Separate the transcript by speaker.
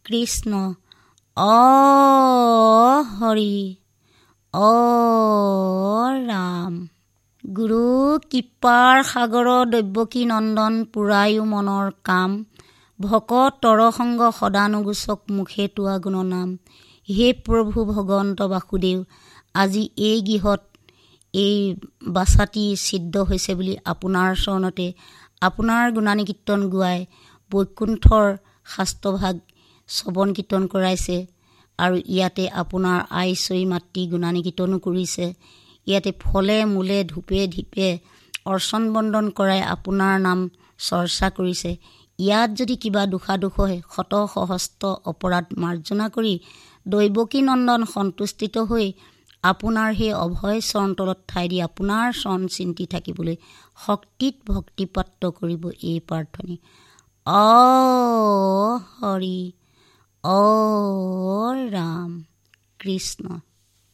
Speaker 1: কৃষ্ণ। অ হৰি, অ ৰাম। গুৰু কৃপাৰ সাগৰ দৈৱকী নন্দন, পুৰায়ো মনৰ কাম। ভকত তৰসংগ সদানুগোচক, মুখে তোৱা গুণনাম। হে প্ৰভু ভগৱন্ত বাসুদেৱ, আজি এই গৃহত এই বাছাটি ছিদ্ৰ হৈছে বুলি আপোনাৰ চৰণতে আপোনাৰ গুণানুকীৰ্তন গোৱাই বৈকুণ্ঠৰ শাস্ত্ৰভাগ শ্ৰৱণ কীৰ্তন কৰাইছে আৰু ইয়াতে আপোনাৰ আইচৈ মাতৃ গুণানুকীৰ্তনো কৰিছে। ইয়াতে ফলে মূলে ধূপে ধীপে অৰ্চন বন্দন কৰাই আপোনাৰ নাম চৰ্চা কৰিছে। ইয়াত যদি কিবা দোষাদোষ হয়, শত সহস্ৰ অপৰাধ মাৰ্জনা কৰি দৈৱকী নন্দন সন্তুষ্টিত হৈ আপোনাৰ সেই অভয় চৰণ তলত ঠাই দি আপোনাৰ চৰণ চিন্তি থাকিবলৈ শক্তিত ভক্তিপ্ৰাপ্ত কৰিব এই প্ৰাৰ্থনী। অ হৰি, অ ৰাম, কৃষ্ণ।